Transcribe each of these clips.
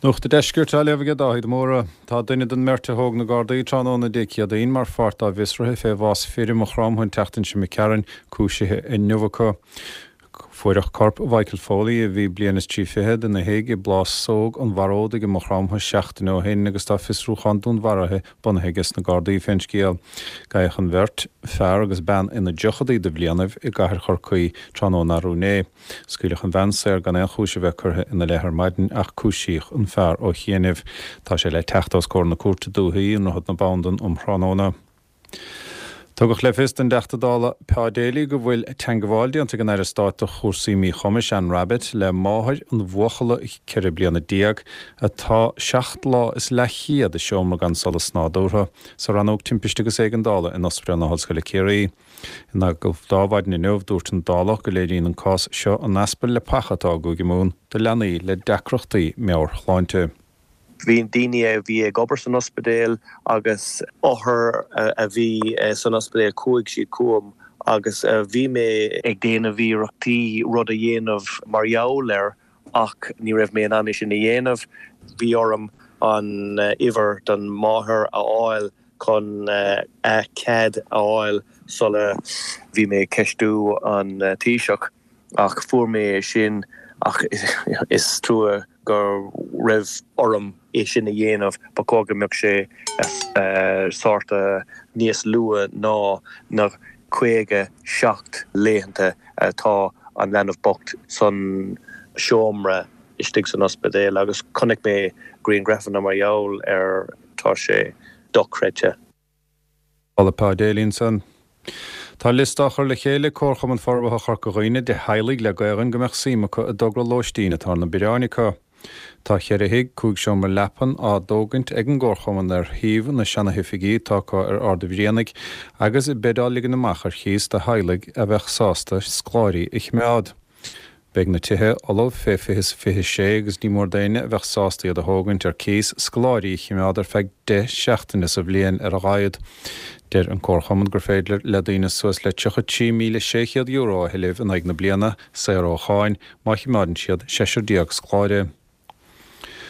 Nuacht an Deiscirt á léamh aige Dáithí de Mórdha. Tá duine den mbeirt a thóg na Gardaí tráthnóna Dé Céadaoin mar pháirt dá bhfiosruithe fé bhás fir i Maigh Chromtha an tseachtain seo imigh tharainn cúisithe inniu acu. Fuaireadh corp Mhichael Foley, a bhí bliain is 30 fichead, ina thigh i bPlásóg an Bharódaigh i Maigh Chromtha seachtain ó shin agus tá fiosrúchán dúnmharaithe bunaithe aige sna Gardaí fén scéal. Gabhadh an bheirt, fear agus bean ina dtríochadaí de bhlianaibh, i gcathair Chorcaí tráthnóna arú inné. Scaoileadh an bhean saor gan aon chúis a bheith curtha ina leith ar maidin ach cúisíodh an fear ó chianaibh. Tá sé le teacht os comhair na Cúirte Dúichí i nDroichead na Bandan um thráthnóna. Tugadh le fios don dTeachta Dála Pa Daly go bhfuil teangabháil déanta ag an Aire Stáit do chúrsaí Míchumais, Anne Rabbitte, le máthair an bhuachalla 14 bliana atá seacht lá is leathchéad i seomra gan solas nádúrtha sa Rannóg Timpiste agus Éigeandála in Ospidéal na hOllscoile Ciarraí. In agallamh do Adhmhaidin inniu, dúirt an Dálach go léiríonn an cás seo an easpa leapacha atá i gCúige Mumhan do leanaí le deacrachtaí meabhairshláinte. Bhí daoine a bhí ag obair san ospidéal agus othair a bhí san ospidéal, chuaigh siad chugam agus bhí mé ag déanamh iarrachtaí rud a dhéanamh mar gheall air ach ní raibh mé in ann é sin a dhéanamh. Bhí orm an uimhir don máthair a fháil chun a cead a fháil sula bhí mé ag ceistiú an Taoiseach ach fuair mé é sin ach is trua go raibh orm é sin a dhéanamh, ba chóir go mbeadh sé sort níos luath ná na 57 laethanta atá an leanbh bocht san seomra istigh san ospidéal agus chonaic mé grianghrafanna mar gheall air. Tá sé dochreidte. Dála Pa Daly ansan. Tá liosta á chur le chéile ag Comharchumann Forbartha Chorca Dhuibhne de theaghlaigh le Gaelainn go mbeadh suim acu i dtogra lóistín atá ar na bioráin acu. Tá cheithre thigh, 5 seomra leapan, á dtógaint ag an gComharchumann ar shuíomh na seanahoifigí atá acu ar Ard a' Bhrianaigh agus beid á ligean amach ar chíos do theaghlaigh a bheadh sásta scoláirí a chimeád. Beidh na tithe ullamh fé 2026 agus ní mór d'éinne a bheadh sásta iad a thógaint ar cíos, scoláirí a chimeád ar feadh 10 seachtaine sa bhliain ar a laghad. Deir an Comharchumann gur féidir le daoine suas le €33,600 a thuilleamh in aghaidh na bliana, saor ó cháin, má chimeádann siad seisear scoláire.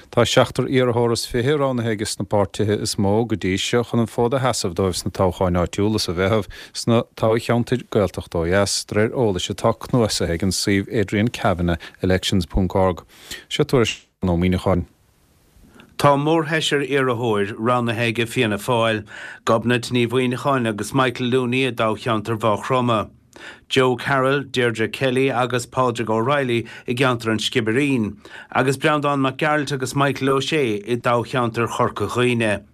Tá seachtar iarrthóir is fiche roghnaithe aige sna páirtithe is mó go dtí seo chun an fód a sheasamh dóibh sna toghcháin áitiúla sa Mheitheamh sna toghcheantair Gaeltachta ó dheas, de réir eolais atá cnuasaithe ag an suíomh adriankavanaughelections ponc org. Seo tuairisc Seán Ó Muíneacháin. Tá mórsheisear iarrthóir roghnaithe aige Fianna Fáil, Gobnait Ní Mhuineacháin agus Michael Looney i dtoghcheantar Mhaigh Chromtha. Joe Carroll, Deirdre Kelly agus Pádraig O'Reilly i gceantar an Sciobairín, agus Breandán Mac Gearailt agus Michael O'Shea i dtoghcheantar Chorca Dhuibhne.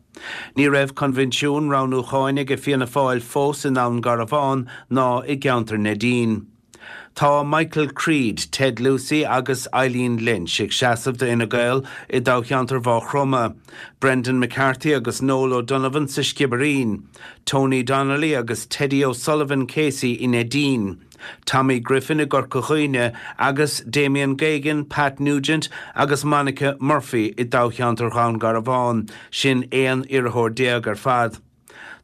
Ní raibh coinbhinsiún roghnúcháin aige Fianna Fáil fós i nDún Garbhán ná i gceantar Neidín. Tá Michael Creed, Ted Lucey agus Eileen Lynch ag seasamh do Fhine Gael i dtoghcheantar Mhaigh Chromtha, Brendan McCarthy agus Noel O'Donovan sa Sciobairín, Tony Donnelly agus Teddy O'Sullivan Casey i Neidín, Tommy Griffin i gCorca Dhuibhne agus Damien Geoghegan, Pat Nugent agus Monica Murphy i dtoghcheantar Dhún Garbhán, sin 11 iarrthóir ar fad.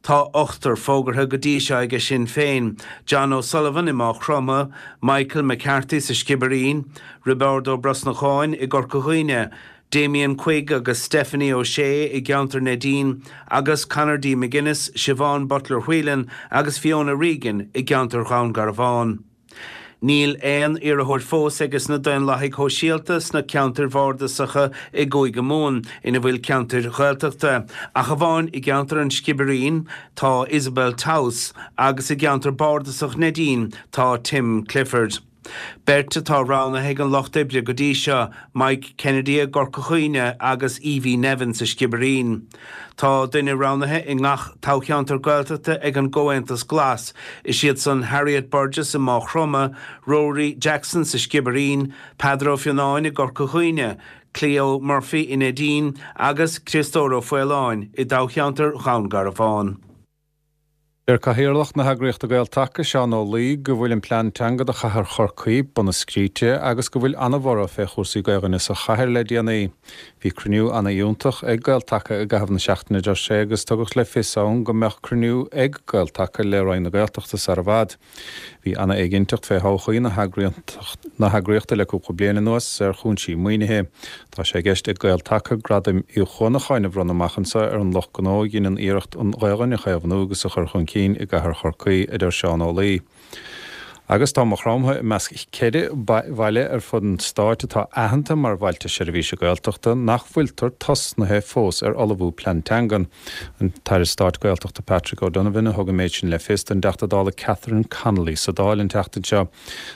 Tá ochtar fógartha go dtí seo aige Sinn Féin, John O'Sullivan i Maigh Chromtha, Michael McCarthy sa Sciobairín, Roibeárd Ó Brosnacháin i gCorca Dhuibhne, Damien Quigg agus Stephanie O'Shea i gceantar Neidín agus Conor D McGuinness, Siobhán Butler Whelan agus Fiona Regan i gceantar Dhún Garbhán. Níl aon iarrthóir fós aige sna Daonlathaigh Shóisialta sna ceantair bhardasacha i gCúige Mumhan ina bhfuil ceantair Ghaeltachta, ach amháin i gceantar an Sciobairín tá Isabel Towse agus i gceantar bardasach Neidín tá Tim Clifford. Beirt atá roghnaithe ag an Lucht Oibre go dtí seo, Mike Kennedy i gCorca Dhuibhne agus Evie Nevin sa Sciobairín. Tá duine roghnaithe i ngach toghcheantar Gaeltachta ag an gComhaontas Glas, is iad san Harriet Burgess i Maigh Chromtha, Rory Jackson sa Sciobairín, Peadar Ó Fionnáin i gCorca Dhuibhne, Cleo Murphy i Neidín agus Criostóir Ó Faoláin i dtoghcheantar Dhún Garbhán. Deir Cathaoirleach na heagraíochta Gael-Taca, Seán Ó Laoi, go bhfuil an plean teanga do chathair Chorcaí bunaidh scríte agus go bhfuil ana-bhorradh fé chúrsaí Gaelainne sa chathair le déanaí. Bhí cruinniú ana-fhiúntach ag Gael-Taca i gcaitheamh na seachtaine, a deir sé, agus tugadh le fios ann go mbeadh cruinniú ag Gael-Taca le Roinn na Gaeltachta sar i bhfad. Bhí ana-éiginnteacht fé thodhchaí na heagraíochta le cúpla bliain anuas ar chúinsí maoinithe. Tá sé i gceist ag Gael-Taca Gradaim Uí Chuanacháin a bhronnadh amach anseo ar an lucht gnó a dheineann iarracht an Ghaelainn a chaomhnú agus a chur chun cinn i gcathair Chorcaí, a deir Seán Ó Laoi. Agus tá Maigh Chromtha i measc 4 bhaile ar fud an stáit atá aitheanta mar Bhailte Seirbhíse Gaeltachta nach bhfuiltear tosnaithe fós ar ullmhú plean teangan. An tAire Stáit Gaeltachta Patrick O'Donovan a thug an méid sin le fios don dTeachta Dála Catherine Connolly sa Dáil an tseachtain seo.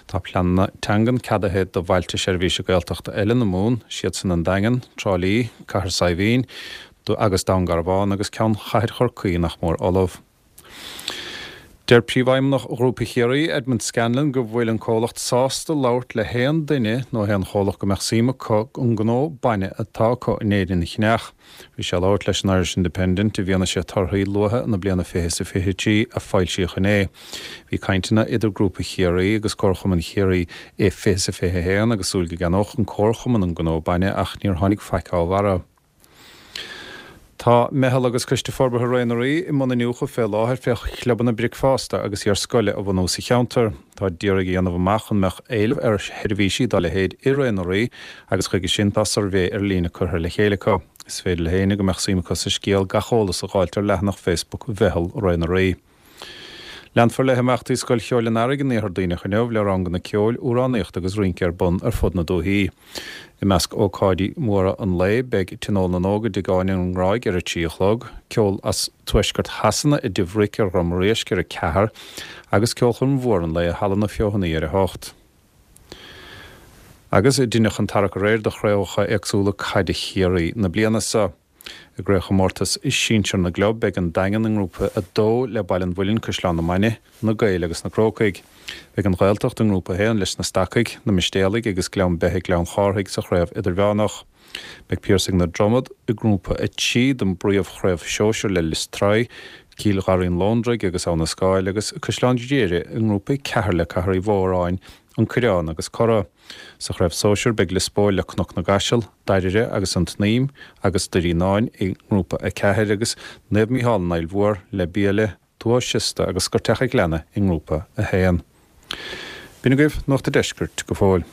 Tá pleananna teangan ceadaithe do Bhailte Seirbhíse Gaeltachta eile na Mumhan, siadsan an Daingean, Trá Lí, Cathair Saidhbhín agus Dún Garbhán agus ceann Chathair Chorcaí nach mór ullamh. Deir Príomhfheidhmeannach Ghrúpa Chiarraí, Edmond Scanlon, go bhfuil an comhlacht sásta labhairt le haon duine nó haon chomhlacht go mbeadh suim acu an gnó bainne atá acu in Éirinn a cheannach. Bhí sé ag labhairt leis an Irish Independent i bhfianaise torthaí luatha na bliana 20 is 23 a foilsíodh inné. Bhí cainteanna idir Grúpa Chiarraí agus Comharchumann Chiarraí i 20 is 21 agus súil go gceannódh an Comharchumann an gnó bainne ach níor tháinig faic dá bharra. Tá Meitheal agus Coiste Forbartha Ré na Rí i mbun iniúchadh fé láthair fé chlubanna bricfeasta agus iar-scoile a bhunú sa cheantar. Táid d'iarraidh a dhéanamh amach an mbeadh éileamh ar sheirbhísí dá leithéid i Ré na Rí agus chuige sin tá suirbhé ar líne curtha le chéile acu. Is féidir le héinne go mbeadh suim acu sa scéal gach eolas a dh'fháilt ar leathanach Facebook Mheitheal Ré na Rí. Leanfar le himeachtaí Scoil Cheoil an Earraigh in Iarthar Duibhneach inniu le ranganna ceoil, amhránaíochta agus rince ar bun ar fud na dúichí. I measc ócáidí móra an lae beidh Tionól na nÓg i dTigh Áine an nGráig ar a 3 a chlog, ceol as tuaisceart Shasana i dTigh Bhric ar Dhrom Réisc ar 4 agus ceolchoirm mhór an lae i Halla na Feothanaí ar 8. Agus deineadh an tarrac aréir do chraobhacha éagsúla caide Chiarraí na bliana seo. I gcraobhchomórtas sinsir na gclub, beidh an Daingean i nGrúpa 2 le Baile an Mhuilinn, Caisleán na Mainge, Na Gaeil agus na Crócaigh. Beidh an Ghaeltacht i nGrúpa 1 leis na Stacaigh, na Mistéalaigh agus Gleann Beithe Gleann Chárthaigh sa chraobh idirmheánach. Beidh Piarsaigh na Dromad i nGrúpa 3 den bpríomhchraobh shóisir le Lios Tuathail, Cill Gharraí an Lóndraigh agus Abha na Scáil agus Caisleán Ghriaire i nGrúpa 4 le Cathair Uí Mhóráin, An Coireán agus Cora. Sa chraobh sóisir beidh Lios Póil le Cnoc na gCaiseal, Doire agus An tSnaidhm agus Doire Fhíonáin i nGrúpa 4 agus Naomh Mícheál an Fhaill Mhór le Biaille, Tuath Siosta agus Scoirteach a' Ghleanna i nGrúpa 1. B'in agaibh Nuacht a' Deiscirt go fóill.